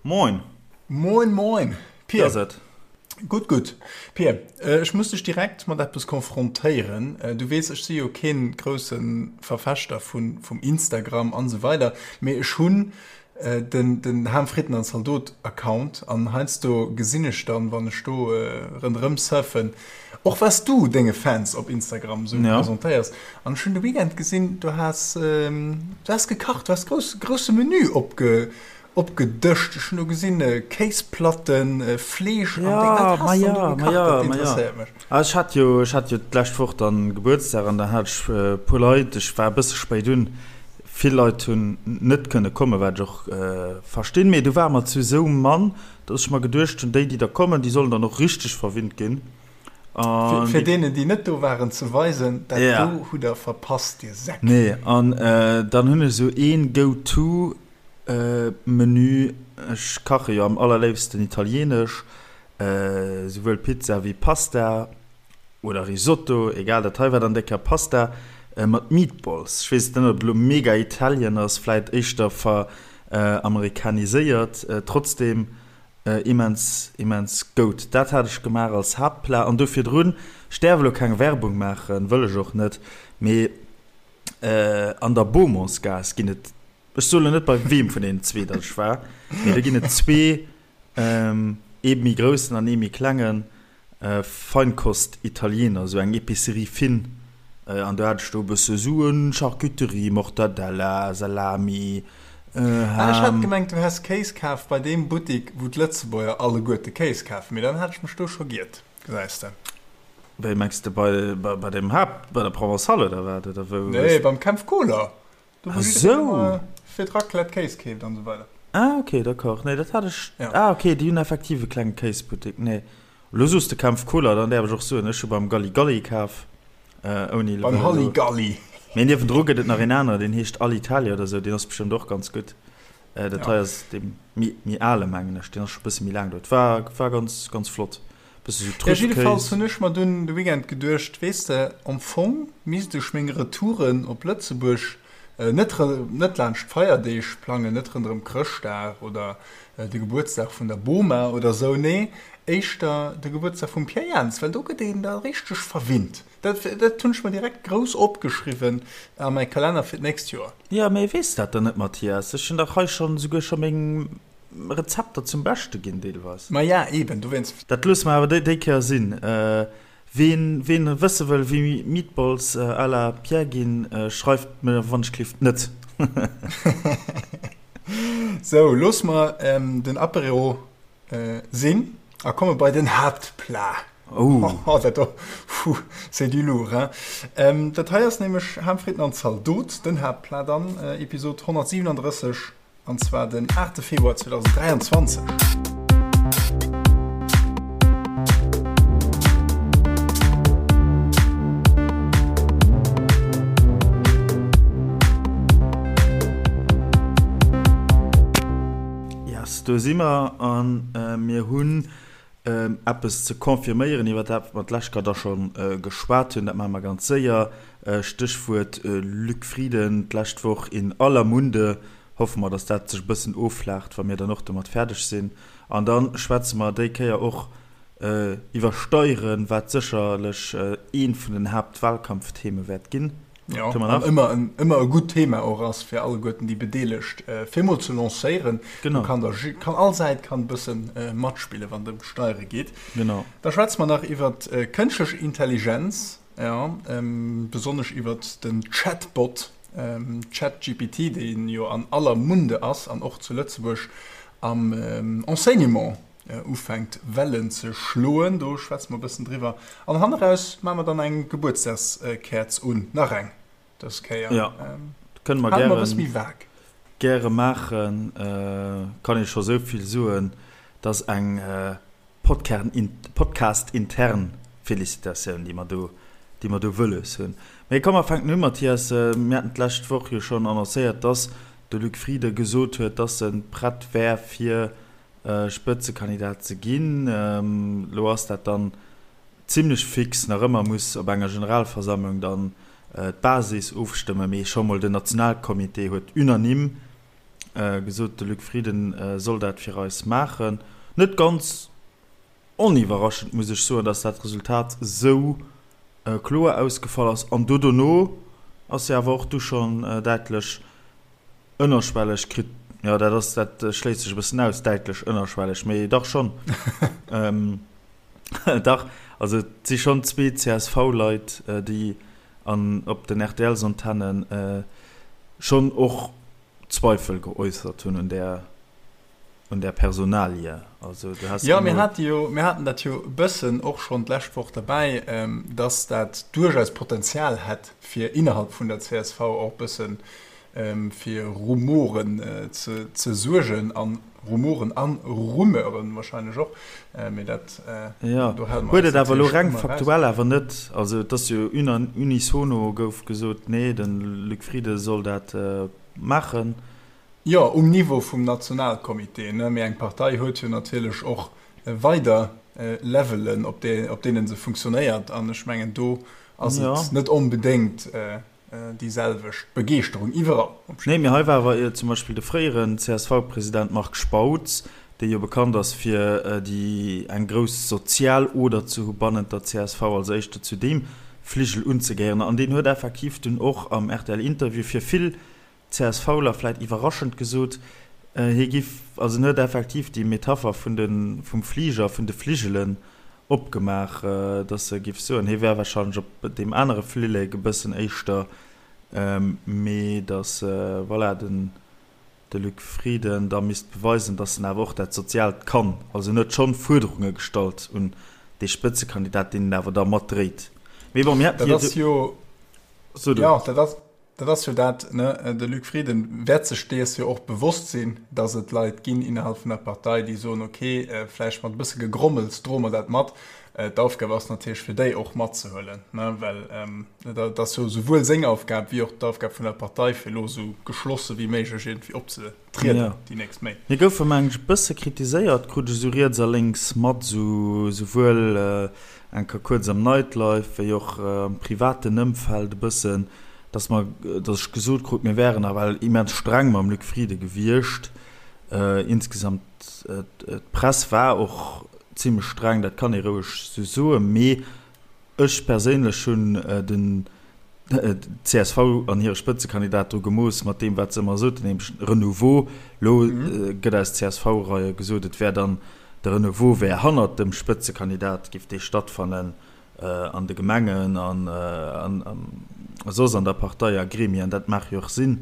Moin! Moin moin! Wéi ass et? Gutt, gutt. Pir, ech muss dech direkt mat eppes konfrontéieren. Du weess, ech si jo kee grousse Verfechter vum Instagram an esou weider, mee ech hunn den Ham Fritten an Zaldot Account an heiansdo gesinn ech dann, wann ech do ronderëm surfen, och was du denge Fans op Instagram esou presentéiers. An ech hunn de Weekend gesinn, du has, du has gekacht, du has grouss, grousse Menü opge Opgedëscht. Ech hunn do gesinn Kéisplatten, Fleesch an Déng. Wat has de do gekacht? Dat interesséiert mech. Ah, ech hat jo, ech hat jo d'lescht Woch dann Gebuertsdag an da hat ech e puer Leit, ech war e bësse spéit un, vill Leit hunn net kënne kommen, wat ech och verstinn, mee du ware mer zu esou mann, dass ech mer geduecht hunn, déi déi da kommen, déi sollen dann och richteg verwinnt ginn. An Fir deenen déi net do waren ze weisen, dat do hutt der verpasst, dir Säck. Nee, an dann hunn ech esou een Go-to Menü, ech kache jo am allerléifsten italienesch, souwuel Pizza wéi Pasta oder Risotto, egal, dat hei war dann déi Kéier Pasta mat Meatballs. Ech weess net ob et elo mega Italien ass, vläit éischter veramerikaniséiert, trotzdem immens immens goud. Dat hat ech gemaach als Haaptplat an do virdrun, ech däerf elo keng Werbung maachen, wëll ech och net, mee an der Beaumontsgaass ginn et Ech soen elo net bei weem vun deenen zwee datt ech war, mee do ginn et zwee, ee méi groussen an ee méi klengen Feinkost-Italiener, esou eng Epicerie fine. An do hat ech do e bësse Suen, Charcuterie, Mortadella, Salami, Ham. Ah, ech hat gemengt du häss Kéis kaf bei deem Buttik wou d'Lëtzebuerger alleguerte Kéis kafen, mee dann hat ech mech do scho giert, gesäis de. Wéi mengs de, bei bei dem Haapt, bei der Provençale oder wat, oder wou? Nee, beim Kempf Kohler. Do wou jiddereen ëmmer fir d'Raclette Kéis keeft an esou weider. Ah ok, d'accord. Nee, dat hat ech. Ja. Ah ok, déi hunn effektiv e klenge Kéisbuttek. Nee, elo soos de Kempf Cola, dann däerf ech och soen, ech hu beim Galli Galli kaf. Ouni elo. Beim Halli Galli. Mee niewendru gëtt et nach een aneren, deen heescht Alitalia oder esou, deen ass bestëmmt och ganz gutt. Dat hei ass dee méi, méi ale mengen ech, deen ass scho e bësse méi laang do. Et war, war ganz, ganz flott. Bësse sou Ja, Trüffkéis. jiddefalls hunn ech mer dunn de Weekend geduecht, weess de, am Fong misst ech meng Retouren op Lëtzebuerg net net laanscht d'Feierdeeg plangen, net ronderëm Chrëschtdag oder de Gebuertsdag vun der Boma oder sou, nee, éischter de Gebuertsdag vum Pierre Jans, well do gëtt een da richteg verwinnt. Dat dat hunn ech mer direkt grouss opgeschriwwen a mäi Kalenner fir d'nächst Joer. Jo, mee weess dat dann net, Mathias? Ech hunn dach hei schonn esouguer scho meng Rezepter zum Beschte ginn deelweis. Ma ja, eben, dowéinst. Dat loosse mer awer déi Kéier sinn. Ween ween wësse wëll wéi Meatballs à la Pierre ginn, schreift mer wann ech klift net. Sou, loosse mer den Apéro sinn a komme bei den Haaptplat. Oh. Dat do, puh, c'est du lourd, hein. Dat hei ass nämlech Ham, Fritten an Zaldot, den Haaptplat an Episod 137. An zwar den 8 Februar 2023. Yes, do si mer a mir hunn eppes ze confirméieren, iwwer dat mer d'lescht Kéier da scho geschwat hunn. Dat maache mer ganz séier. Stéchwuert Luc Frieden, d'lescht Woch in aller Munde. Hoffe mer, datt dat sech e bëssen offlaacht, wa mir dann och domat fäerdeg sinn. An da schwätze mer déi Kéier och iwwer Steieren, wat sécherlech eent vun den Haaptwahlkampftheme wäert ginn. Jo, an ëmmer en, ëmmer e gutt Thema och ass fir alleguerten déi Bedeelegt, fir emol ze lancéieren. Genau. Do kann da, kann all Säit kann e bësse matspillen, wann et ëm d'Steiere geet. Genau. Da schwätze mer nach iwwer kënschtlech Intelligenz, jo, besonnesch iwwer den Chatbot ChatGPT, dee jo an aller Munde ass an och zu Lëtzebuerg am Enseignement ufänkt Wellen ze schloen. Do schwätze mer e bëssen driwwer. An hanneraus maache mer dann eng Gebuertsdagskäerz un, nach eng dës Kéier. Jo, kënne mer gären, e bësse méi vag. Gäre maachen. Kann ee scho sou vill soen, dass eng Podcast-intern Felicitatioun, déi mer do, déi mer do wëlles hunn. Mee komm, mer fänken u, Mathias. Mir haten d'lescht Woch jo schonn annoncéiert, dass de Luc Frieden gesot huet, dass e prett wär, fir Spëtzekandidat ze ginn. Elo ass dat dann zimlech fix. Nach ëmmer muss op enger Generalversammlung dann d'Basis ofstëmmen, mee scho mol den Nationalcomité huet unanime. Gesot, de Luc Frieden soll dat fir eis maachen. Net ganz oniwwerraschend, muss ech soen, datt dat Resultat esou kloer ausgefall ass. An do dono ass jo awer och du schonn däitlech ënnerschwelleg kritt, jo dat ass, dat schléisst sech e bëssen aus, däitlech ënnerschwelleg, mee dach schonn, dach, also et si schonn zwee CSV-Leit, déi an op den RTL-Antennen schonn och Zweifel geäussert hunn un där, un där Personalie. Also du has Jo, mir hate jo, mir haten dat jo e bëssen och schonn d'lescht Woch derbäi, dass dat duerchaus Potenzial hätt, fir innerhalb vun der csv och e bësse fir Rumoren ze suergen, a Rumoren a Rumeuren wahrscheinlech och, mee dat, Jo, do hale mer huet eis et awer elo natierlech reng ëmmer eraus. faktuell awer net, also et ass jo unisono gouf gesot, nee, de Luc Frieden soll dat maachen. Jo, um Niveau vum Nationalcomité, ne, mee eng Partei huet jo natierlech och weider Levelen, op deene se funktionéiert, an ech mengen, do ass et net onbedéngt déi selwecht Begeeschterung iwwerall. Nee, mee hei war awer zum Beispill de fréieren CSV-President Marc Spautz, dee jo bekannt ass fir déi eng grouss sozial Oder ze hu bannent der csv, als éischter zu deem Fligel unzegehéieren. An deen huet effektiv dunn och am RTL-Interview fir vill CSVler vläit iwwerraschend gesot, hie giff, also en huet effektiv déi Metapher vun de, vum Fliger, vun de Fligelen opgemaach, datt e giff soen, hie wär wahrscheinlech op deem anere Flillek e bëssen éischter, mee datt, voilà, den de Luc Frieden da misst beweisen, datt en awer och dat Soziaalt kann. Also en huet schonn Fuerderunge gestallt un dee Spëtzekandidat, deen en awer da matdréit. Mee bon, mir hätten jo. So du. Jo, dat ass, dat ass jo dat, ne? De Luc Frieden wäert sech dees jo och bewosst sinn, datt et Leit ginn innerhalb vun der Partei, déi soen, okay, vläicht mat e bësse Gegrommels droe mer dat mat. D'Aufgab ass natierlech fir déi och matzehuelen, ne? Well dat ass jo souwuel seng Aufgab wéi och d'Aufgab vun der Partei, fir elo esou geschlosse wéi méiglech iergendwéi opzetrieden déi nächst Méint. Mir goufe mengen ech e bësse kritiséiert, krut ech esou riets a lénks mat, esou souwuel eng Kéier kuerz am Nightlife wéi och am privaten Ëmfeld e bëssen, dass mer, dass ech gesot krut, mir wären nawell immens streng mam Luc Frieden gewiescht. Insgesamt, d'Press war och zimlech streng, dat kann ee roueg esou soen, mee ech perséinlech hunn den d'CSV an hire Spëtzekandidat dru gemooss mat deem, wat se ëmmer soten, nämlech Renouveau. Elo gëtt aus CSV-Reie gesot, et wär dann de Renouveau wär hannert dem Spëtzekandidat, géif dee stattfannen an de Gemengen an soss an der Partei a Gremien. Dat mag jo och sinn.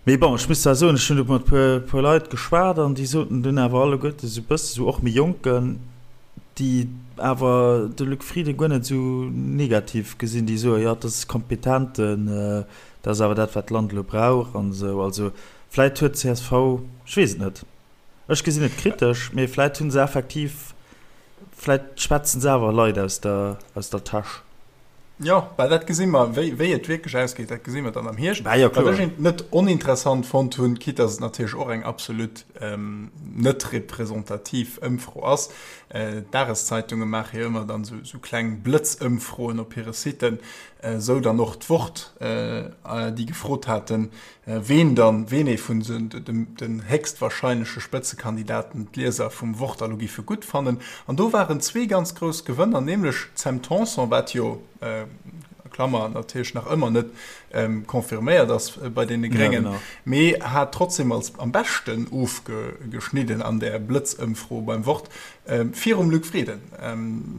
Mee bon, ech muss zwar soen, ech hunn do mat e puer Leit geschwat an déi soten dunn awer alleguerte sou e bësse sou, och méi Jonken, déi awer de Luc Frieden guer net esou negativ gesinn, déi soen, jo, dat ass kompetenten, dat ass awer dat, wat d'Land elo brauch an esou. Also vläit huet csv, ech weess et net, ech gesinn et kritesch, mee vläit hu se effektiv, vläit schwätzen se awer Leit aus der, aus der Täsch. Jo, well dat gesi mer, wéi, wéi et wierklech ausgeet, dat gesi mer dann am Hierscht. Bah, jo, kloer. Wat ech net oninteressant fonnt hunn, quitte dass et natierlech och eng absolut ähm, net representativ Ëmfro ass, äh, d'Dageszeitunge maache jo ëmmer dann esou, esou kleng Blëtzëmfroen op hire Siten, äh, esou dann och d'Wort, äh, déi gefrot haten, Ween dann, ween ee vun den héchstwahrscheinleche Spëtzekandidaten d'Lieser vum Wort elo giffe gutt fannen. An do waren zwee ganz grouss Gewënner, nämlech d'Sam Tanson, wat jo, Klammer, natierlech nach ëmmer net confirméiert ass bei deene Gréngen, mee hat trotzdem als am beschten ofgeschnidden an där Blëtzëmfro beim Wort, virum Luc Frieden,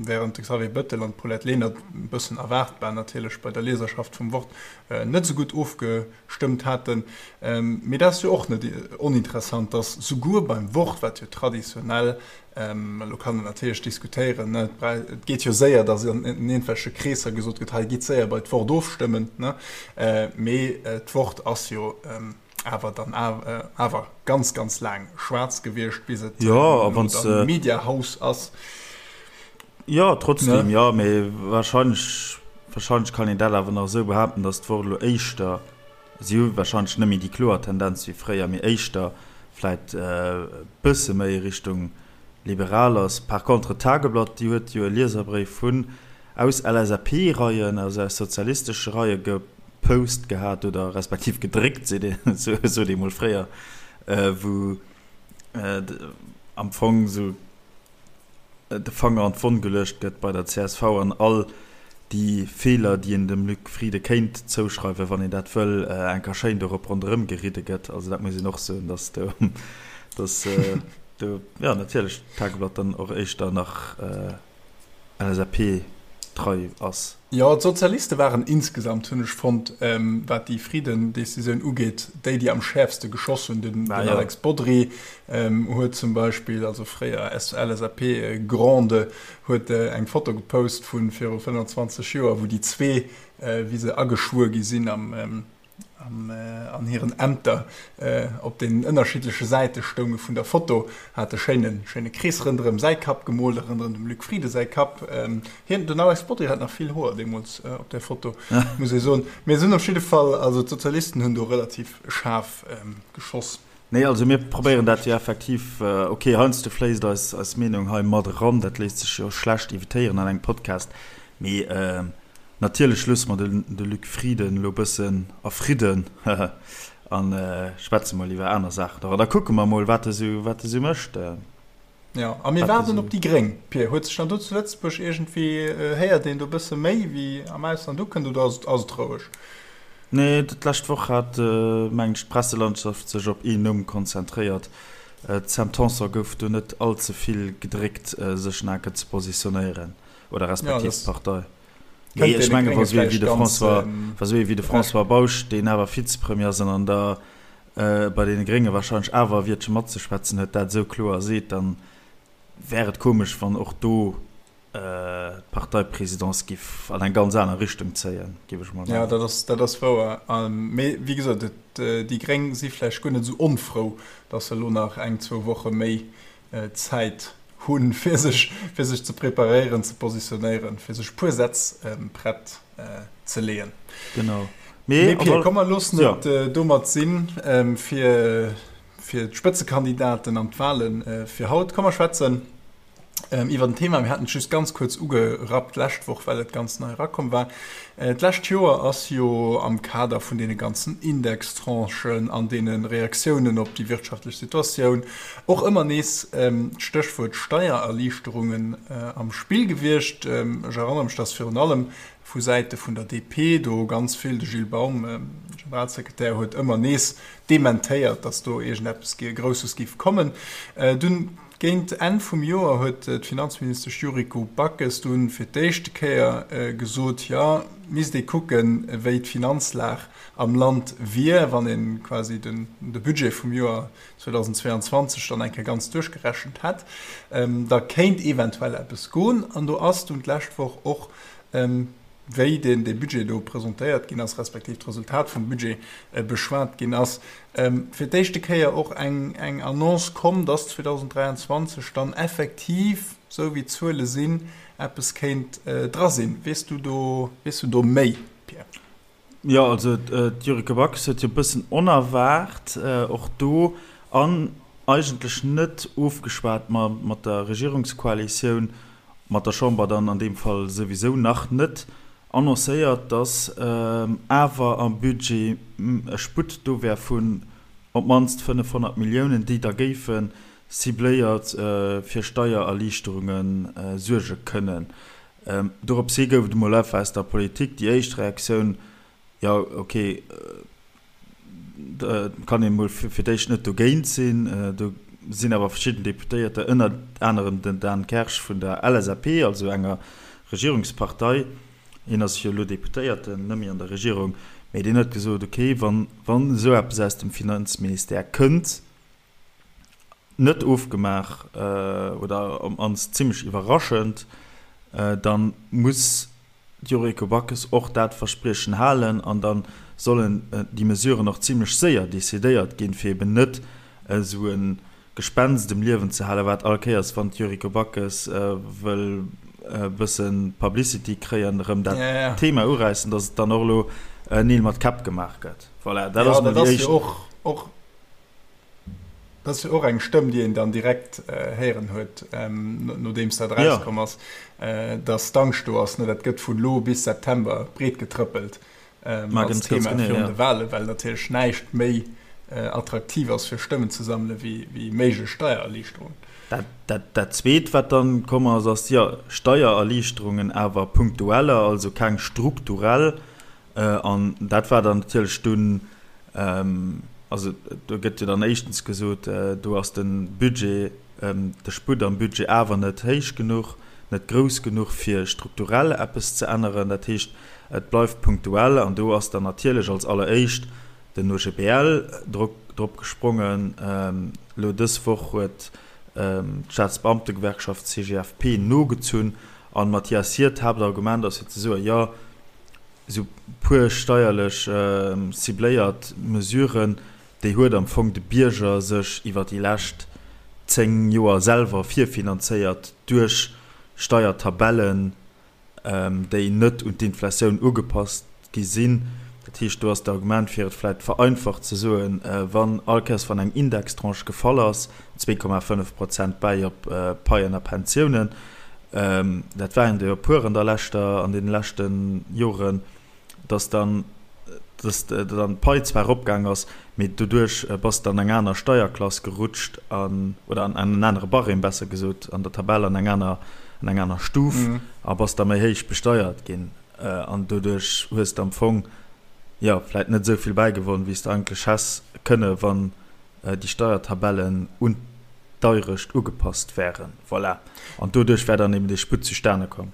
während de Xavier Bettel an d'Paulette Lenert, e bëssen erwaartbar natierlech bei der Lieserschaft vum Wort, net esou gutt ofgestëmmt haten. Mee dat ass jo och net oninteressant, datt souguer beim Wort, wat jo traditionell, elo kann een natierlech diskutéieren, ne, et geet jo séier, datt an iergendwelche Kreesser gesot gëtt, hei gitt séier bei d'Wort ofstëmmen, ne, mee d'Wort ass jo awer dann awer ganz, ganz laang schwaarz gewiescht, bis et elo dann Mediahaus ass. Jo, trotzdem, jo, mee wahrscheinlech, wahrscheinlech kann een dat awer nach esou behaapten, datt d'Wort elo éischter, si hu wahrscheinlech net méi déi kloer Tendenz wéi fréier, mee éischter vläit e bësse méi Richtung liberal ass. Par contre d'Tageblatt, déi huet jo e Lieserbréif vun aus LSAP-Reien, also aus sozialistesche Reie. Post gehat oder respektiv gedréckt, seet een, sot ee mol fréier, wou am Fong esou de Fanger an d'Wonn geluecht gëtt bei der csv an all déi Feeler, déi een dem Luc Frieden kéint zouschreiwen, wann een dat wëll, eng Kéier schéin dorop ronderëm geridde gëtt. Also dat muss een och soen, datt do, datt do, jo natierlech d'Tageblatt dann och éischter nach LSAP trei ass. Jo, d'Sozialiste waren insgesamt, hunn ech fonnt, wat déi Frieden-Decisioun ugeet, déi, déi am schäerfste geschoss hunn. Den Alex Bodry huet zum Beispill, also fréier LSAP-Grande, huet eng Foto gepost vu viru 25 Joer, wou déi zwee, wéi se ageschwuer gi sinn am an hiren Ämter op den ënnerschiddleche Säite stounge vun der Foto, hat e schéine schéine Krees rënderëm säi Kapp gemoolt a rënderëm dem Luc Frieden säi Kapp. Hien, den Alex Bodry hat nach vill Hoer deemools op där Foto, muss ee soen. Mee se hunn op jidde Fall, also d'Sozialisten hunn do relativ schaarf geschoss. Nee, also mir probéieren dat jo effektiv, ok, heiansdo fléisst eis eis Meenung hei mat eran, dat léisst sech jo schlecht evitéieren an engem Podcast, mee Natierlech loosse mer de Luc Frieden elo bëssen a Fridden a schwätze mol iwwer aner Saachen och. An da kucke mer mol, wat e sou, wat e sou mécht. Jo, a mir waarden op déi Gréng. Pir, huet sech dann do zu Lëtzebuerg iergendwéi, héiert een do bësse méi wéi am Ausland ukënnt oder ass et roueg? Nee, d'lescht Woch hat, mengen ech, d'Presselandschaft sech op een Numm konzentréiert. D'Sam Tanson gouf do net all ze vill gedréckt, sech naken ze positionéieren. Oder respektiv d'Partei. Nee, ech menge wa sou ee wéi de François, wa sou ee wéi de François Bausch, deen awer Vizepremier ass an an der bei deene Grénge wahrscheinlech awer e Wiertche matzeschwätzen huet, dat esou kloer seet, dann wär et komesch, wann och do d'Parteiprésidence giff an eng ganz aner Richtung zéien, giff ech mol mengen. Jo, dat ass, dat ass wouer. Mee wéi gesot, et, déi Gréng si vläicht guer net esou onfrou, datt se elo nach eng, zwou Woche méi Zäit hunn, fir sech, fir sech ze preparéieren, ze positionéieren, fir sech e puer Sätz prett ze leeën. Genau. Mee Pir, komm mer loossen et domat sinn, fir, fir d'Spëtzekandidaten an d'Wahlen fir haut. Komm mer schwätzen iwwer en Thema, mir haten et just ganz kuerz ugerappt d'lescht Woch, well et ganz nei erakomm war. D'lescht Joer ass jo am Kader vun deene ganzen Indextranchen an deene Reaktiounen op déi wirtschaftlech Situatioun och ëmmer nees d'Stéchwuert Steiererliichterungen am Spill gewiescht. Ech erënnere mech, dass virun allem vu Säite vun der DP do ganz vill, de Gilles Baum, Generalsekretär, huet ëmmer nees dementéiert, dass do iergendeppes Grousses géif kommen. Dunn Géint Enn vum Joer huet d'Finanzministesch Yuriko Backes dunn fir d'éischte Kéier gesot, jo, misst ee kucken, wéi d'Finanzlag am Land wier, wann ee quasi de Budget vum Joer 2022 dann eng Kéier ganz duerchgerechent hätt, da kéint eventuell eppes goen. An do ass dunn d'lescht Woch och wéi deen dee Budget do presentéiert ginn ass, respektiv d'Resultat vum Budget beschwat ginn ass, fir d'éischte Kéier och eng eng Annonce komm, dass 2023 dann effektiv, esou wéi d'Zuele sinn, eppes kéint dra sinn. Weess du do, weess du do méi, Pierre? Jo, also d'Yuriko Backes huet jo e bëssen onerwaart och do an eigentlech net ofgeschwat mat der Regierungskoalitioun, mat der Chamber dann an deem Fall souwisou nach net, annoncéiert, datt awer am Budget e Sputt do wär vun op d'mannst 500 Milliounen, déi da géife cibléiert fir Steiererliichterunge suerge kënnen. Dorops hi gouf et emol einfach aus der Politik déi éischt Reaktioun, Jo, ok, da kann een emol fir d'éischt net dogéint sinn. Do sinn awer verschidden Deputéierter, ënnert anerem den Dan Kersch vun der LSAP, also enger Regierungspartei, hien ass jo elo Deputéierten, net méi an der Regierung, mee deen huet gesot, ok, wann esou eppes aus dem Finanzministère kënnt, net ofgemaach oder op mannst zimmlech iwwerraschend, da muss d'Yuriko Backes och dat Verspriechen halen an da sollen déi Mesuren och zimmlech séier decidéiert ginn, fir eben net esou e Gespenst um Liewen ze halen, wat all Kéiers, wann d'Yuriko Backes wëll e bësse Publicity kréien, erëm dat Thema uräissen, datt et dann och elo Neel mat Käpp gemaach gëtt. Voilà, dat ass mol déi éischt. Dat ass jo och eng Stëmm, déi een dann direkt héieren huet, nodeems dat erauskomm ass, datt d'Angscht do ass. Dat gëtt vun elo bis September breet getrëppelt. Als Thema virun de Wahlen, well natierlech näischt méi attraktiv ass fir Stëmmen ze sammele wéi méiglech Steiererliichterungen. Dat Zweet, wat dann komm ass, ass, jo, Steiererliichterungen, awer punktueller, also keng strukturell. An dat war dann natierlech dunn, also do gëtt jo dann éischtens gesot, do ass de Budget, de Sputt am Budget awer net héich genuch, net grouss genuch, fir strukturell eppes ze änneren. Dat heescht, et bleift punktuell. An do ass dann natierlech als alleréischt den OGBL drop gesprongen. Elo dës Woch huet d'Staatsbeamtegewerkschaft CGFP nogezunn. An Mathias, hiert Haaptargument ass jo ze soen, jo, esou puer steierlech cibléiert Mesuren, déi huet am Fong de Bierger sech iwwer déi lescht 10 Joer selwer virfinanzéiert duerch Steiertabellen, déi net un d'Inflatioun ugepasst gi sinn. Dat heescht, do ass d'Argument, fir et vläicht vereinfacht ze soen, wann all Kéiers wann eng Indextranche gefall ass, 2,5 Prozent bäi op Paien a Pensiounen, dat waren der jo e puer an der leschter, an deene leschte Joren, dass dann, dass dann d'Pai zwar eropgaang ass, mee doduerch bass de an eng aner Steierklass gerutscht an, oder an en anere Barème besser gesot, an der Tabell an eng aner, an eng aner Stuf a bass da méi héich besteiert ginn. An doduerch hues de am Fong, jo, vläit net esou vill bäigewonn, wéi s de eigentlech häss kënne wann déi Steiertabellen un d'Deurecht ugepasst wären. Voilà. An doduerch wär dann eben dee Sputt zustane komm.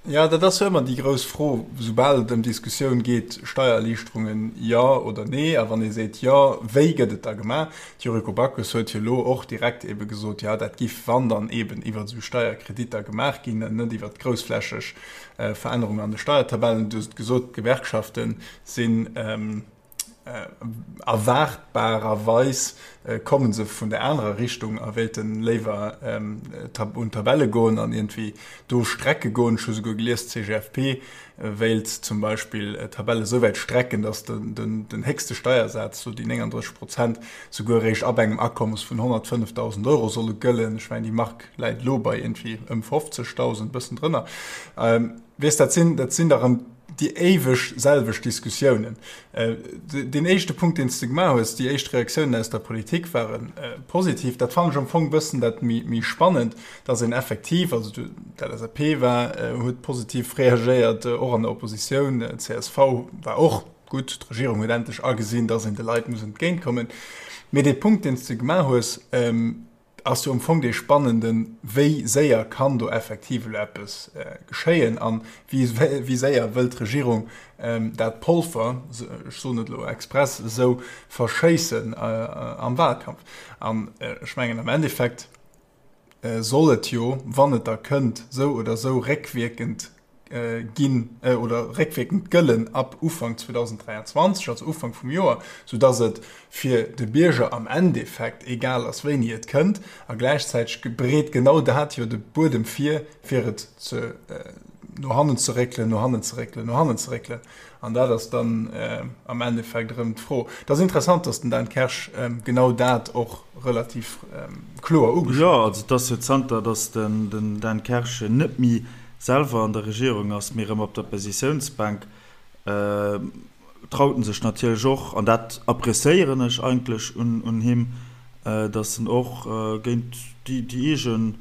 Jo, dat ass jo ëmmer déi grouss Fro, soubal et ëm d'Diskussioun geet, Steiererliichterungen, jo oder nee? A wann ee seet jo, wéi gëtt et da gemaach? D'Yuriko Backes huet jo elo och direkt ebe gesot, jo, dat giff, wann dann eben iwwer esou Steierkreditter gemaach ginn, net iwwer groussflächeg Verännerungen an de Steiertabellen. Du hues et gesot, d'Gewerkschafte sinn, Erwaartbarerweis komme se vun der anerer Richtung a wéilte léiwer un d'Tabelle goen an iergendwéi do strecke goen. Ech hu souguer gelies, d'CGFP wéilt zum Beispill d'Tabelle esou wäit strecken, datt den héchste Steiersaz, sou déi 39 Prozent, souguer eréischt ab engem Akommes vun 105.000 Euro solle gëllen. Ech mengen, déi Mark läit elo bei iergendwéi ëm 50.000, e bëssen drënner. Weess, dat sinn, dat sinn da rëm déi éiweg selwecht Diskussiounen. Deen éischte Punkt, deen s de gemaach hues, déi éischt Reaktiounen aus der Politik ware positiv. Dat fannen ech am Fong e bëssen dat méi spannend, dass een effektiv, also d'LSAP war, huet positiv reagéiert, och an der Oppositioun, csv war och gutt, d'Regierung huet endlech agesinn, dass een de Leit muss entgéintkommen. Mee dee Punkt, deen s de gemaach hues, ass jo am Fong dee spannenden, wéi séier kann do effektiv elo eppes geschéien a wéi séier wëllt d'Regierung dat Polver, ech soen et elo express esou, verschéissen am Wahlkampf. An ech mengen am Endeffekt soll et jo, wann et da kënnt, esou oder esou réckwierkend ginn oder réckwierkend gëllen ab Ufank 2023, also Ufank vum Joer, soudass et fir de Bierger am Endeffekt egal ass, wéini et kënnt. A gläichzäiteg bereet genau dat jo de Buedem vir, fir et ze no hannen ze réckelen, no hannen ze réckelen, no hannen ze réckelen. An dat ass dann am Endeffekt erëm d'Fro. Et ass interessant, dass den Dan Kersch genau dat och relativ kloer ugeschwat huet. Jo, also et ass jo zanter dass den Dan Kersch net méi selwer an der Regierung ass, mee erëm op der Oppositiounsbänk, traut en sech natierlech och, an dat appréciéieren ech eigentlech un him, datt en och géint déi eegen,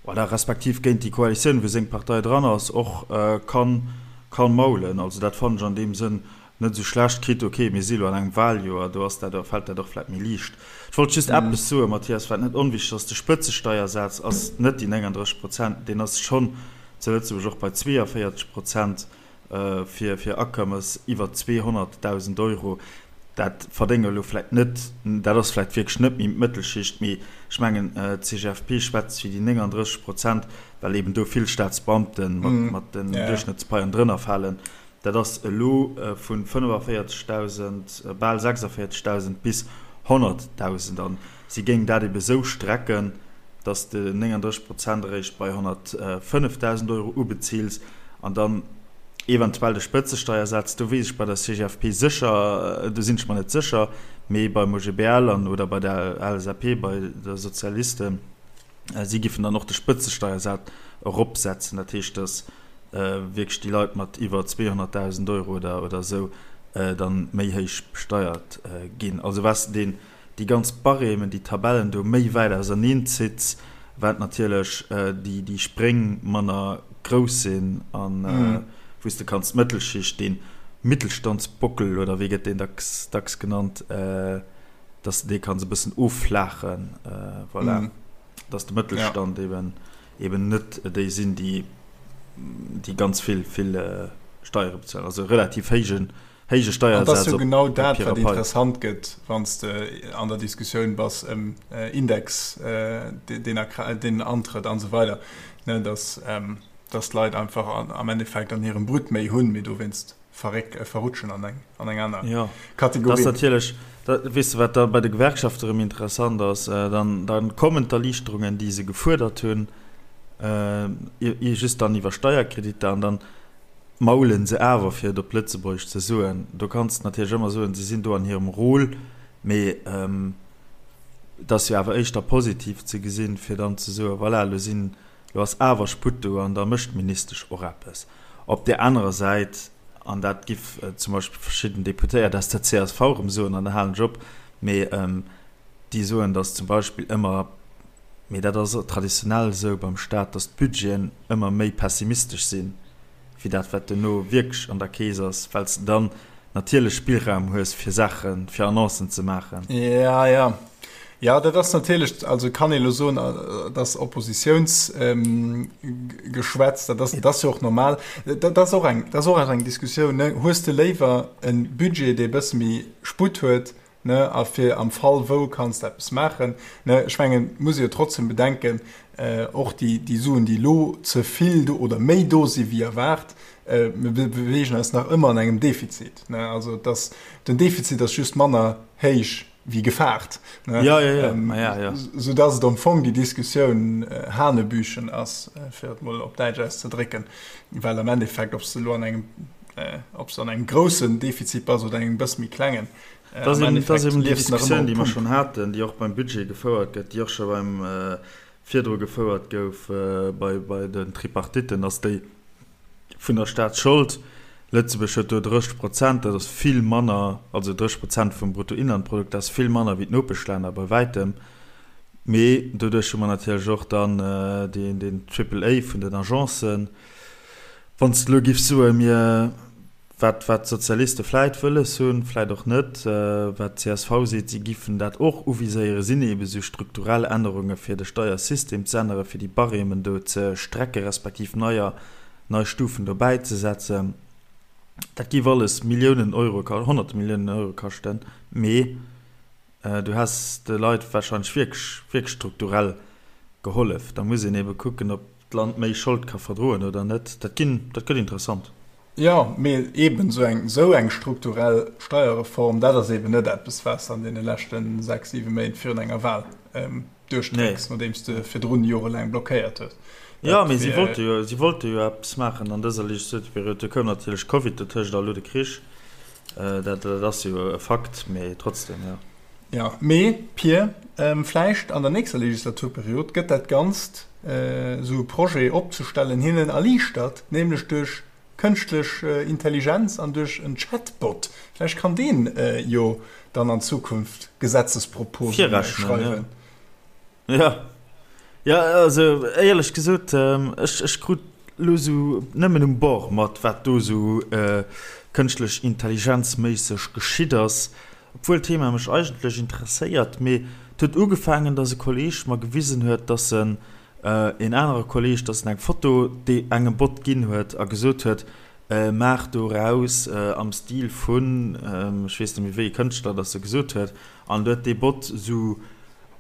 oder respektiv géint déi Koalitioun, wou seng Partei dran ass, och ka maulen. Also dat fannen ech an deem Sënn net esou schlecht. Quitte, ok, mir si elo an engem Wahljoer, do ass dat, fält dat och vläicht méi liicht. Ech wollt just eppes soen, Mathias, wat net onwichtig ass, De Spëtzesteiersaz ass net déi 39 Prozent, deen ass schonn zu Lëtzebuerg och bei 42 Prozent fir fir Akommes iwwer 200.000 Euro. Dat verdénge elo vläicht net, dat ass vläicht wierklech net méi d'Mëttelschicht, mee ech mengen, d'CGFP schwätzt fir déi 39 Prozent, well eben do vill Staatsbeamte mat den Duerchschnëttspaien drënner falen. Dat ass elo vu 45.000, bal 46.000 bis 100.000. A si géing dat ebe sou strecken, datt s de 39 Prozent eréischt bei 105.000 Euro ubezils an dann eventuell de Spëtzesteiersaz. Do weess ech bei der CGFP sécher, do sinn ech mer net sécher, mee beim OGBL an oder bei der LSAP, bei de Sozialisten, si giffen dann och de Spëtzesteiersaz eropsetzen. Dat heescht, datt wierklech déi Leit mat iwwer 200.000 Euro oder oder esou. dann méi héich besteiert ginn. Also wat s de deen, déi ganz Barèmen, déi Tabellen do méi wäit auserneen zitts, wat natierlech déi, déi Spréng manner grouss sinn an wou s de kanns d'Mëttelschicht, deen Mittelstandsbockel oder wéi gëtt deen dacks, dacks genannt, dass de dee kanns e bëssen offlaachen, voilà, dass de Mëttelstand eben, eben net déi sinn, déi, déi ganz vill, vill Steiere bezuelen, also relativ héijen, héije An et ass Steiersaz jo op genau dat, Papier a wat Pai. interessant gëtt, wann s de an der Diskussioun bass ëm Index, deen a Kra-, deen antrëtt an esou weider, ne, dass, dass d'Leit einfach am Endeffekt an hirem Brut méi hunn, mee dowéinst verréck, verrutschen an eng, an eng aner Jo, dat ass Kategorie. natierlech, da, weess de, wat da bei de Gewerkschafte erëm interessant ass, dann, dann kommen d'Erliichterungen, déi se gefuerdert hunn, just dann iwwer Steierkreditter an dann maulen se awer, fir et op Lëtzebuergesch ze soen. Do kanns de natierlech ëmmer soen, se sinn do an hirem Rôle, mee et ass jo awer éischter positiv ze gesinn, fir dann ze soen, voilà, elo sinn, elo ass awer Sputt do an da mécht d'Ministesch och eppes. Op där anerer Säit, an dat giff zum Beispill verschidden Deputéiert aus der csv erëm soen, an da halen ech op, mee déi soen, datt zum Beispill ëmmer, Mee dat ass traditionell esou beim Staat, datt d'Budgeten ëmmer méi pessimistesch sinn, wéi dat, wat duerno wierklech an der Keess ass, well s de dann natierlech Spillraum hues, fir Saachen, fir Annoncen ze maachen. Ja, ja. Jo, dat ass natierlech, also kann ee elo soen, dat ass Oppositiounsgeschwätz, dat ass, dat ass jo och normal. Dat ass och eng, dat ass och eng Diskussioun, ne. Hues de léiwer e Budget, dee e bësse méi Sputt huet, ne, a fir am Fall wou kanns de eppes maachen, ne. Ech mengen, et muss ee jo trotzdem bedenken, och déi, déi Suen, déi elo ze vill do oder méi do si wéi erwaart, mir beweegen eis nach ëmmer an engem Defizit, ne. Also et ass, den Defizit ass just manner héich wéi gefaart, ne, Ja, ja, ja, ma ja, ja. soudass et am Fong déi Diskussioun hanebüchen ass, fir et mol op Däitsch auszedrécken, well am Endeffekt, ob s de elo an engem, ob s de an engem groussen Defizit bass oder engem bësse méi klengen, Dat ass eben, dat ass eben déi Diskussioun, déi mer schonn haten, déi och beim Budget gefouert gëtt, déi och scho beim virdru gefouert gouf bei, bei den Tripartitten, ass déi vun der Staatsschold. Lëtzebuerg huet do 30 Prozent, dat ass vill manner, also 30 Prozent vum Bruttoinlandprodukt, dat ass vill manner wéi d'Nopeschlänner bei wäitem. Mee doduerch hu mer natierlech och dann deen, deen Triple A vun den Agencen. Wann s de elo giffs soen, mir Wat wat d'Sozialiste vläit wëlles hunn, vläit och net, wat d'CSV seet, si giffen dat och uviséieren, sinn eebe sou strukturell Ännerunge fir de Steiersystem ze änneren, fir déi Barèmen do ze strecke respektiv neier, nei Stufen dobäi ze setzen. Dat géif alles Milliounen Euro, Honnerte Milliounen Euro kaschten, mee du häss de Leit warscheinlech wierklech, wierklech strukturell gehollef. Da muss een eebe kucken, ob d'Land méi Schold ka verdroen oder net. Dat ginn, dat gëtt interessant. Jo, mee eeben esou eng, esou eng strukturell Steierreform, dat ass eeben net eppes, wat s de an deene leschte sechs, siwe Méint virun enger Wal duerchdrécks, nodeem s de virdrun jorelaang blockéiert hues. Jo, mee si wollte jo, si wollte jo eppes maachen an dëser Legislaturperiod. Do koum natierlech Covid dotëscht a elo de Krich. Dat, dat ass jo e Fakt, mee trotzdem, jo. Jo, mee Pir, vläicht an der nächster Legislaturperiod gëtt dat Ganzt, esou e Projet opzestellen, hinnen erliichtert, nämlech duerch kënschtlech Intelligenz an duerch en Chatbot. Vläicht kann deen jo dann an Zukunft Gesetzesproposen schreiwen. Jo, jo, also éierlech gesot, ech, ech krut elo esou nëmmen um Bord mat, wat do esou kënschtlech Intelligenz-méisseg geschitt ass, obwuel d'Thema mech eigentlech interesséiert. Mee et huet ugefaangen, dass e Kolleeg mer gewisen huet, dass en, een anere Kolleeg, dass en eng Foto dee engem Bot ginn huet a gesot huet, maach doraus am Stil vun, ech weess net méi wéi ee Kënschtler dass e gesot huet, an du huet dee Bot esou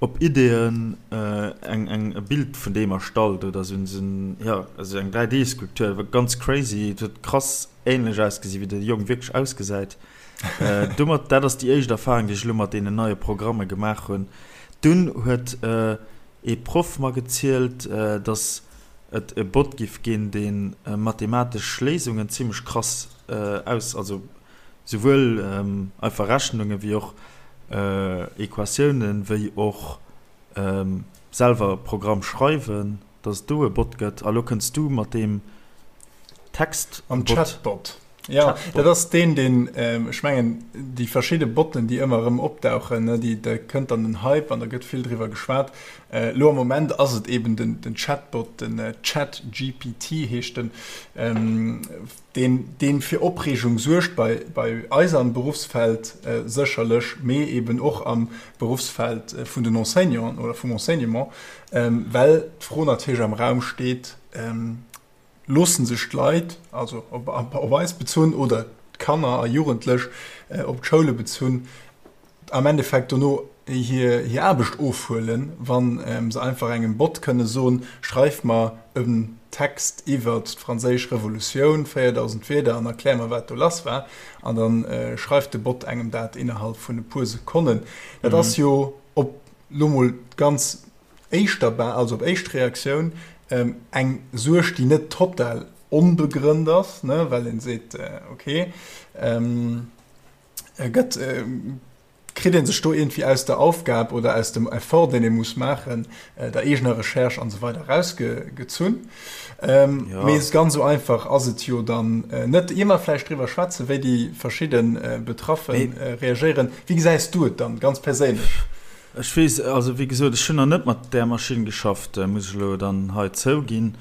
op Ideeën eng eng e Bild vun deem erstallt oder sou en jo also eng 3D Skulptur war ganz crazy et huet krass ähnlech ausgesi wéi de Jong wierklech ausgesäit domat dat ass déi éischt Erfahrung déi ech elo mat deenen neie Programme gemaach hunn dunn huet ee Proff mer gezielt dass et e Bot giff ginn dee mathematesch Léisungen zimmlech krass aus also Souwuel einfach Rechnunge wéi och Equatiounen, wéi och selwer Programm schreiwen, dass et do e Bot gëtt. A lo kënns du mat deem Text-Bot. Mam Chatbot. Ja, dat ass deen, deen, ech mengen, déi verschidde Botten, déi ëmmer erëm opdauchen, ne, déi, da kënnt dann den Hype an da gëtt vill driwwer geschwat. Elo am Moment ass et eben den, den Chatbot, den ChatGPT heescht en, deen, deen fir Opreegung suergt bei, bei eis am Beruffsfeld sécherlech, mee eben och am Beruffsfeld vun den Enseignanten oder vum Enseignement, well d'Fro natierlech am Raum steet, Loossen sech d'Leit, also op eis bezunn oder d'Kanner a Jugendlech op d'Schoule bezunn, am Endeffekt dono hir Aarbecht ofhuelen, wa se einfach engem Bot kënne soen, schreif mer en Text iwwert d'Franséisch Revolutioun, 4.000 Wierder, an erklär mer, wat do lass war. An da schreift de Bot engem dat innerhalb vun e puer Sekonnen. Dat ass jo op lo mol ganz éischter Ba-, also op éischt Reaktioun, eng Suerg, déi net total onbegrënnt ass, ne, well een seet, okay, gëtt, kritt ee sech do iergendwéi aus der Aufgab oder aus dem Effort, deen ee muss maachen, der eegener Recherche an esou weider erausgezunn. Mee ganz esou einfach ass et jo dann net. Ier mer vläicht driwwer schwätzen, wéi déi verschidde Betraffe reagéieren, wéi gesäis du et dann ganz perséinlech? Ech weess, also wéi gesot, ech hunn nach net mat där Maschinn geschafft, muss ech elo dann hei zouginn,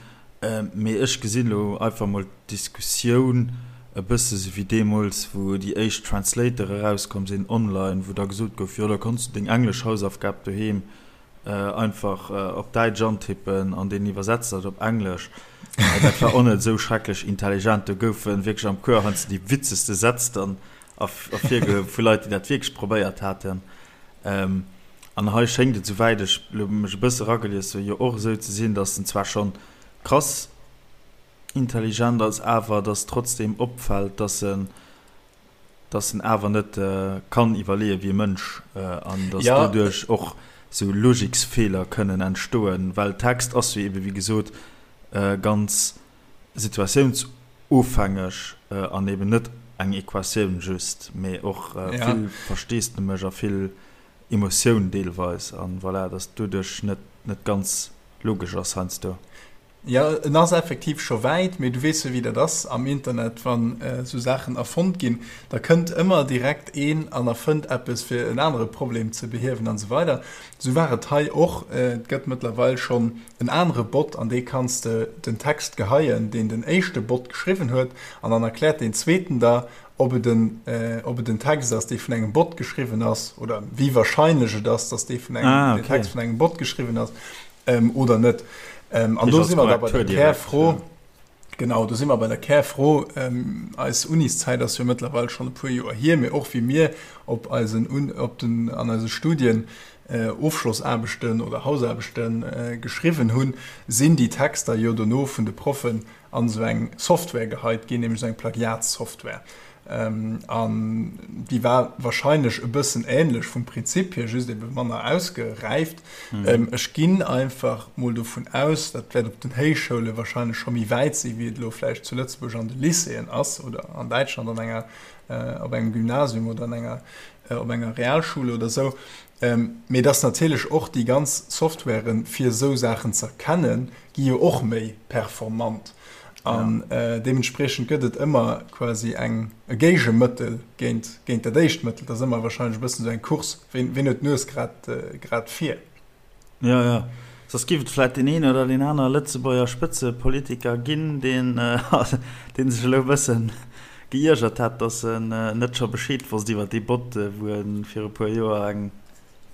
mee ech gesinn elo einfach mol d'Diskussioun e bësse sou wéi deemools, wou déi éischt Translator erauskomm sinn online, wou da gesot gouf, jo da konns du deng englesch Hausaufgab doheem einfach op Däitsch antippen an deen iwwersetzt dat op Englesch. Dat war och net esou schrecklech intelligent, do goufe wierklech am Cours heiansdo déi witzegste Sätz dann ervirgehuewen vu Leit, déi dat wierklech probéiert haten. An hei schéngt et, souwäit ech elo mech e bësse eragelies hunn, jo och esou ze sinn, datt en zwar schonn krass intelligent ass, awer datt trotzdeem opfält, datt en, datt en awer net kann iwwerleeë wéi e Mënsch an datt doduerch och esou Logiksfeeler kënnen entstoen, well Text ass jo ebe wéi gesot ganz situatiounsofhängeg an eben net eng Equatioun just, mee och vill Versteesdemech a vill Emotioun deelweis an voilà, dass doduerch net net ganz logesch ass heiansdo. Jo, en ass effektiv scho wäit, mee du weess jo wéi dat ass am Internet, wann esou Saachen erfonnt ginn, da kënnt ëmmer direkt een an erfënnt eppes fir en anere Problem ze behiewen an esou weider. Esou war et hei och. Et gëtt mëttlerweil schonn en anere Bot, an dee kanns de den Text geheien, deen den éischte Bot geschriwwen huet, an dann erkläert deen zweeten der, ob et en, ob et en Text ass, dee vun engem Bot geschriwwen ass, oder wéi wahrscheinlech et ass, dass dee vun engem, ah, okay. den Text vun engem Bot geschriwwen ass, ähm, oder net. Ähm, an do si mer da bei der Kärfro. Genau, do si mer bei der Kärfro. Ähm, eis Uniszäit ass jo mëttlerweil schonn e puer Joer hier, mee och wéi mir op eisen, op den, an eise Studien Ofschlossaarbechten oder Hausaarbechte geschriwwen hunn, sinn déi Texter jo dono vun de Proffen an esou eng Software geheit ginn, nämlech esou eng Plagiatssoftware. An déi war wahrscheinlech e bëssen änlech vum Prinzip hier, just ebe manner ausgeräift. Ech ginn einfach mol dovun aus, dat wäert op den Héichschoule wahrscheinlech scho méi wäit sinn, wéi et elo vläicht zu Lëtzebuerg an de Lycéeën ass oder an Däitschland an enger, op engem Gymnasium oder an enger, op enger Realschule oder esou. Mee dass natierlech och déi ganz Softwaren, fir esou Saachen ze erkennen, gi jo och méi performant. An deementspriechend gëtt et ëmmer quasi eng, e Géigemëttel géint, géint dat éischt Mëttel. Dat ass ëmmer wahrscheinlech e bëssen esou eng Course, ween, ween huet d'Nues grad, grad vir. Jo, jo. Soss géif et vläit deen een oder deen aner Lëtzebuerger Spëtzepolitiker ginn, deen, dee sech elo e bëssen geiergert hätt, datt en net scho Bescheed wosst iwwer dee Bot, wou e viru puer Joer eng,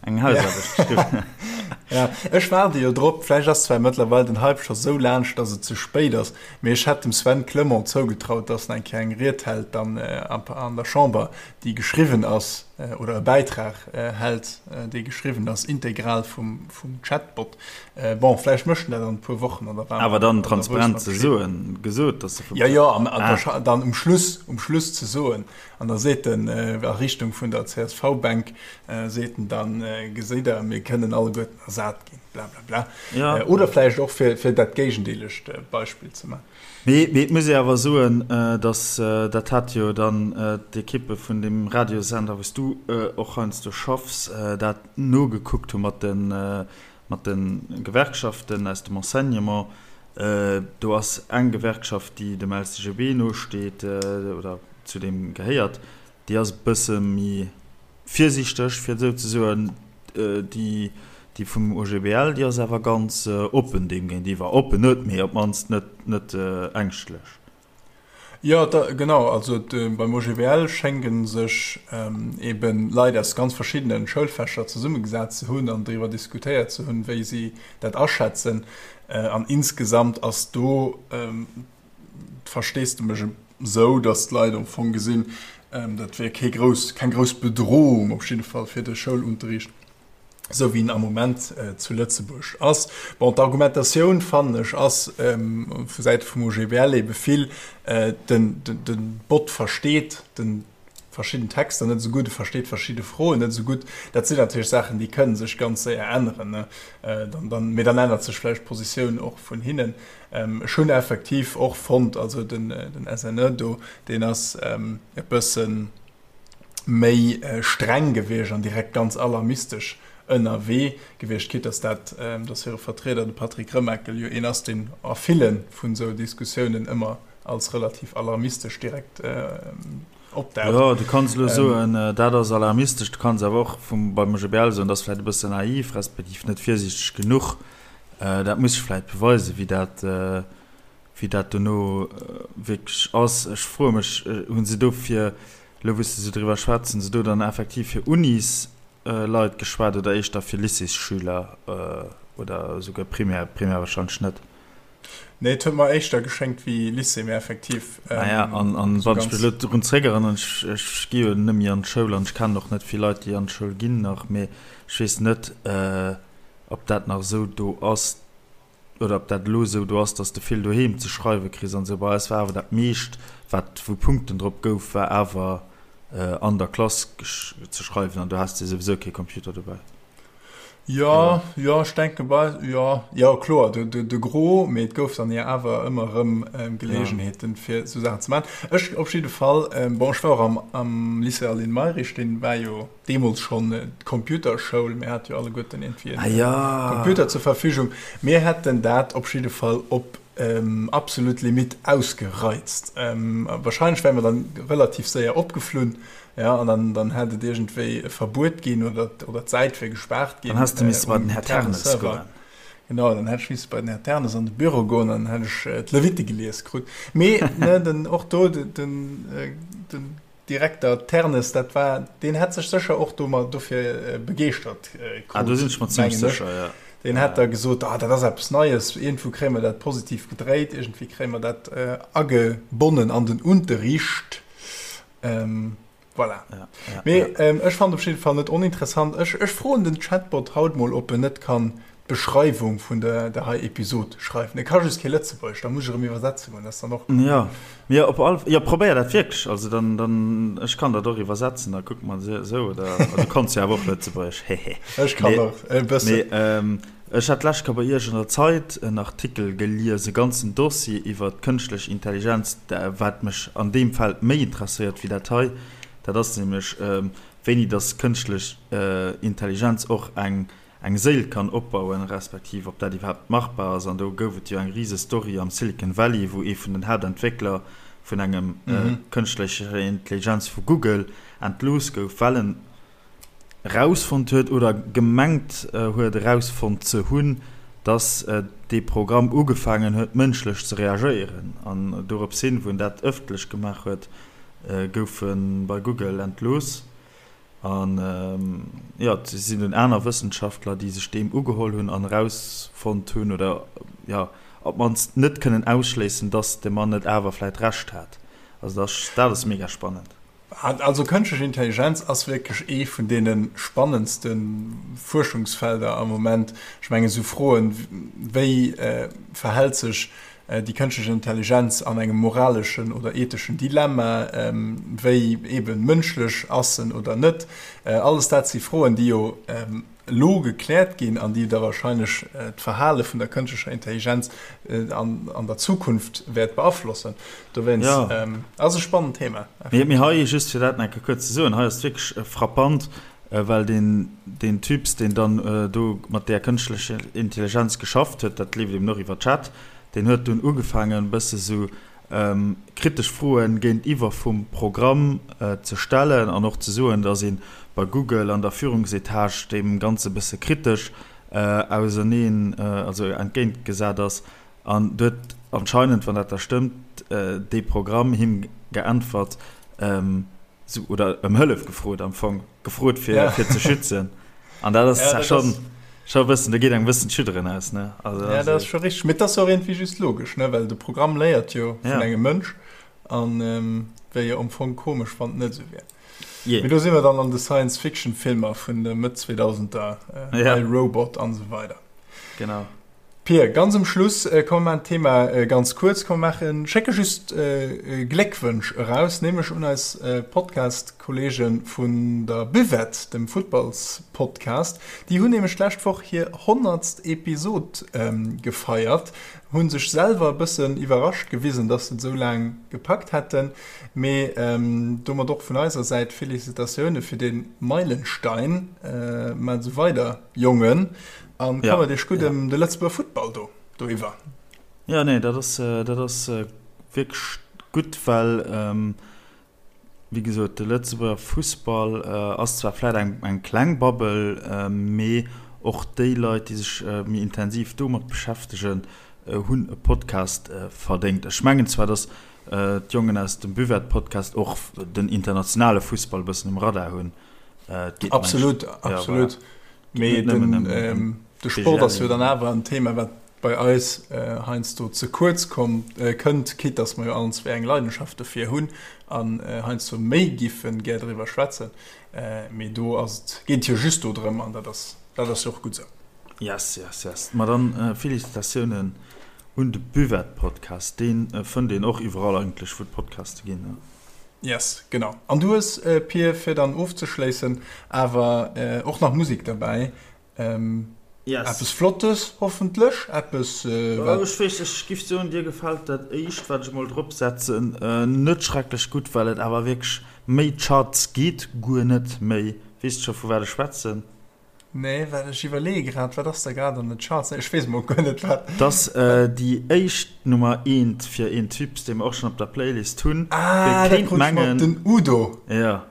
eng Hausaarbecht geschriwwen huet. Ja, ech waarde jo drop. Vläicht ass zwar mëttlerweil den Hype scho sou laanscht, datt et ze spéit ass, mee ech hätt dem Sven Clement zougetraut, datt en eng Kéier eng Ried hält dann an der Chamber, déi geschriwwen ass, oder e Bäitrag hält, dee geschriwwen ass, integral vum Chatbot. Bon, vläicht mécht en dat an e puer Wochen an da war Awer dann transparent ze soen, gesot, dass se vum. Jo, jo, an dann um Schluss, um Schluss ze soen, an da seet en a Richtung vun der CSV-Bänk, seet en dann, Geséit Der, mir kënnen alleguerten ersat ginn, blablabla. Oder vläicht och fir dat géigendeelegt Beispill ze maachen. Mee et muss ee awer soen, datt, dat hat jo dann d'Ekippe vun deem Radiosender, wou s du och heiansdo schaffs, dat nogekuckt hu mat de, mat de Gewerkschaften aus dem Enseignement. Do ass eng Gewerkschaft, déi dem LCGB nosteet oder zu deem gehéiert, déi ass e bësse méi virsiichteg, fir et esou ze soen. Déi, déi vum OGBL, déi ass awer ganz oppen deem géintiwwer. Oppen net, mee op d'mannst net, net ängschtlech. Jo, da, genau. Also beim OGBL schénge sech eben Leit aus ganz verschiddene Schoulfächer zesummegesat ze hunn an driwwer diskutéiert ze hunn, wéi si dat aschätzen. An insgesamt ass do d'Versteesdemech esou, datt d'Leit am Fong gesinn, dat wier kee grouss, keng grouss Bedrohung op jidde Fall fir de Schoulunterricht. esou wéi en am Moment zu Lëtzebuerg ass. Bon, d'Argumentatioun, fannen ech, ass vu Säite vum OGBL ebe vill, den Bot versteet de verschidden Texter net esou gutt, e versteet verschidde Froen net esou gutt. Dat sinn natierlech Saachen, déi kënne sech ganz séier änneren, mee dann ännert sech vläicht d'Positioun och vun hinnen. Ech hunn effektiv och fonnt, also den SNE do, deen ass e bëssen, méi streng gewiescht an direkt ganz alarmistesch ënnerwee gewiescht, quitte dass dat, dass hire Vertrieder, de Patrick Remakel, jo een ass, deen a ville vun esou Diskussiounen ëmmer als relativ alarmistesch direkt opdaucht. Jo, du kanns elo soen, dat ass alarmistesch, du kanns awer och vum, beim OGBL soen, dat ass vläicht e bëssen naiv, respektiv net virsiichteg genuch. Dat muss sech vläicht beweisen, wéi dat, Wéi dat dono wierklech ass, ech froe mech, hu se do fir, elo wou s de esou driwwer schwätz, hu se do dann effektiv fir Unisleit geschwat oder éischter fir Lycéesschüler oder esouguer Primaire? Primaire wahrscheinlech net. Nee, et huet mer éischter geschéngt wéi Lycée, mee effektiv. Ah ja, an, an wann ech mech elo drun zréckerënneren, ech, ech gi jo net méi an d'Schoul an ech kennen och net vill Leit, déi an d'Schoul ginn nach, mee ech weess net, ob dat nach esou do ass, oder ob dat elo esou do ass, dass de vill doheem ze schreiwe kriss an esou. Bei eis war awer dat meescht, wat wou Punkten drop gouf, war awer an der Klass ze schreiwen an do has de souwisou kee Computer dobäi. Jo, jo, ech denke bei, jo, jo, kloer, de, de, de Gros, mee et gouf dann jo awer ëmmer erëm Geleegenheeten, fir esou Saachen ze maachen. Ech op jidde Fall, bon, ech war och am, am Lycée Aline Mayrisch, dee war jo, deemools schonn d'Computerschoul, mir hate jo alleguerten iergendwéi en Computer zur Verfügung, mir hätten dat op jidde Fall op absolut Limitt ausgereizt. Wahrscheinlech wäre mer dann relativ séier opgeflunn, jo, an dann, dann hätt et iergendwéi e Verbuet ginn oder, oder d'Säit wier gespaart ginn. Dann häss de misse bei den Här Ternes goen. Genau, dann hätt ech misse bei den Här Ternes an de Büro goen an dann hätt ech d'Levite gelies krut. Mee, ne, den, och do, den, den Direkter Ternes, dat war, deen hätt sech sécher och domat dofir begeeschtert krut. Ah, do sinn ech mer zimmlech sécher, ja. Deen hätt da gesot, ah, dat ass eppes Neies, iergendwou kréie mer dat positiv gedréit, iergendwéi kréie mer dat agebonnen an den Unterricht. Voilà. Ja, ja, Mee ech fannen op jidde Fall net oninteressant. Ech, ech froen den Chatbot haut mol, ob en net kann d'Beschreiwung vun der der hei Episod schreiwen. E ka just kee Lëtzebuergesch, da muss ech erëm iwwersetze goen, dat ass dann och. Jo, mee op all, jo probéier dat wierklech, also dann, dann, ech kann dat och iwwersetzen, da kucke mer esou, oder du kanns jo awer och Lëtzebuergesch, hehe. Ech kann och e bëssen. Mee ech hat d'lescht Kéier bei Iech an der Zeit en Artikel gelies, e ganzen Dossier iwwer d'kënschtlech Intelligenz, wat mech an deem Feld méi interesséiert wéi dat hei, dat ass nämlech wéini dass kënschtlech Intelligenz och eng eng Séil kann opbauen, respektiv ob dat iwwerhaapt machbar ass. An do gouf et jo eng rise Story am Silicon Valley, wou ee vun den Haaptentwéckler vun engem kënschtlecher Intelligenz vu Google entlooss gouf, well en erausfonnt huet oder gemengt huet erausfonnt ze hunn, datt dee Programm ugefaangen huet mënschlech ze reagéieren. An dorops hin, wou en dat ëffentlech gemaach huet, gouf e bei Google entlooss. An jo, et sinn dunn aner Wëssenschaftler, déi sech deem ugeholl hunn an erausfonnt hunn, oder jo, op d'mannst net kënnen ausschléissen, dass de Mann net awer vläit Recht hat. Also dat ass, dat ass mega spannend. Also kënschtlech Intelligenz ass wierklech ee vun deene spannendste Fuerschungsfelder am Moment. Ech mengen, esou Froen, wéi verhält sech déi kënschtlech Intelligenz an engem moraleschen oder etheschen Dilemma, wéi eben mënschlech ass en oder net, alles dat si Froen, déi jo elo gekläert ginn an déi da wahrscheinlech d'Verhale vun der kënschtlecher Intelligenz an der Zukunft wäert beaflossen. Dowéinst ass e spannend Thema. Mee hei, just fir dat nach eng Kéier kuerz ze soen, hei ass et wierklech frappant, well deen, deen Typs, deen dann do mat där kënschtlecher Intelligenz geschafft huet, dat leeft eben och iwwer Chat. Deen huet dunn ugefaangen, e bësse sou kritesch Froen géintiwwer vum Programm ze stellen an och ze soen, datt ee bei Google an der Führungsetage deem Ganze bësse kritesch auserneen, also entgéint gesat ass. An do huet anscheinend, wann dat da stëmmt, dee Programm him geäntwert, sou, oder ëm Hëllef gefrot am Fong, gefrot fir, fir ze schützen. An dat ass ja, schon, schon e bëssen, do geet engem e bëssen d'Schudderen aus, ne? Also, ja, dat ass scho richteg. Mee dat ass och iergendwéi just logesch, ne? Well de Programm léiert jo vun ja. engem Mënsch an ähm, wär jo am Fong komesch, wann et net esou wär. Yeah. Mee do si mer dann an de Science-Fiction-Filmer vun de Mëtt 2000er, äh, ja. I, Robot an esou weider. Genau. Pir, ganz um Schluss, komm mer maachen d'Thema ganz kuerz, komm mer maachen, schécke just Gléckwënsch eraus, nämlech un eis Podcast-Kollege vun der Buvette, dem Futtballspodcast. Déi hunn nämlech d'lescht Woch hir honnertst Episod gefeiert, hu sech selwer e bëssen iwwerrascht gewisen, dass se et esou laang gepackt hätten. Mee domat och vun eiser Säit Felicitatioune fir dee Meilenstein. Maacht esou weider, Jongen! An ja. kommert Iech gutt ëm de Lëtzebuerger Futtball do doiwwer. Ja nee, dat ass, äh, dat ass äh, wierklech gutt, well ähm, wéi gesot, de Lëtzebuerger Fussball äh, ass zwar vläit eng, eng kleng Bubble, äh, mee och déi Leit, déi sech äh, méi intensiv domat beschäftegen, äh, hunn e Podcast äh, verdéngt. Ech mengen zwar, datt äh, d'Jongen aus dem Buvette-Podcast och den internationale Fussball e bëssen um Radar hunn. Äh, et geet, Absolut, mengen ech, ja, absolut. Voilà. Mee den, de Sport ass jo dann awer en Thema, wat bei eis heiansdo ze kuerz kommt, kënnt, quitte dass mer jo allen zwee eng Leidenschaft dofir hunn an heiansdo méi giffe gär driwwer schwätzen. Mee do ass et, geet et jo just do drëm an dat ass, dat ass jo och gutt esou. Yes, yes, yes. Ma dann Félicitatiounen un de Buvette-Podcast. Dee fënnt een och iwwerall eigentlech, wou et Podcaste ginn. Yes, genau. An du hues, Pir, fir dann ofzeschléissen, awer och nach Musek derbäi. Yes. Eppes Flottes hoffentlech, eppes wat. Ech weess, ech giff soen, dir gefält dat éischt, wat ech emol drop setzen, net schrecklech gutt, well et awer wierklech méi Charts geet guer net méi. Weess de scho vu wat ech schwätzen? Nee, well ech iwwerleeë grad, wat ass da grad an den Charts? Nee, ech weess emol guer net, wat. 't ass déi éischt Nummer eent fir een Typ, dee mer och schonn op der Playlist hunn. Ah, dat krut ech mat, den Udo. Jo,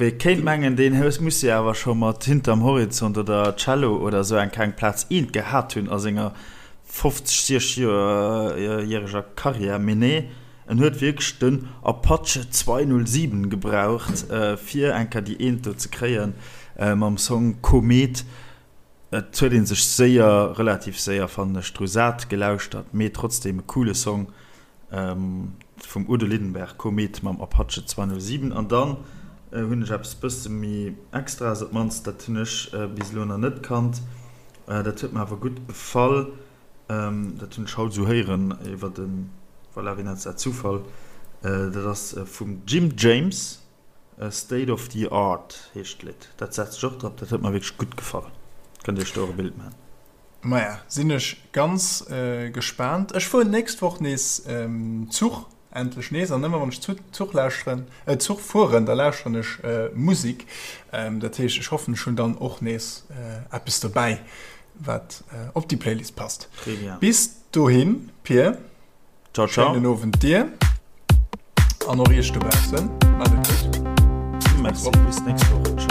wee kéint mengen, deen muss jo awer scho mat Hinterm Horizont oder Cello oder esou eng kleng Plaz eent gehat hunn a senger 50, 60 järeg Karriär. Mee nee, En huet wierklech den Apache 207 gebraucht fir eng Kéier déi Eent do ze kréien mam Song Komet. Et huet een sech séier, relativ séier fannen ech, dru sat gelauschtert, mee trotzdem e coole Song vum Udo Lindenberg, Komet mam Apache 207. An dann hunn ech eppes bësse méi Extraes, op d'mannst dat hunn ech bis elo nach net kannt, dat huet mer awer gutt gefall. Dat hunn ech haut esou héieren iwwer de, voilà, wéi nennt se dat, Zufall. Dat ass vum Jim James, State of the Art heescht d'Lidd. Dat setzt ech och drop, dat huet mer wierklech gutt gefall. Kënnt Iech do och e Bild maachen. Maja, sinn ech ganz gespaant. Ech fueren d'nächst Woch nees Zuch. Endlech nees, an ëmmer wann ech Zuch lauschteren, Zuch fueren, da lauschteren ech Musik. Dat heescht, ech hoffen, ech hunn dann och nees eppes dobäi, wat op déi Playlist passt. Très bien. Bis dohin, Pir. Ciao, ciao. Schéinen Owend dir an och iech dobaussen. Maacht et gutt. Merci, bis d'nächst Woch. Ciao.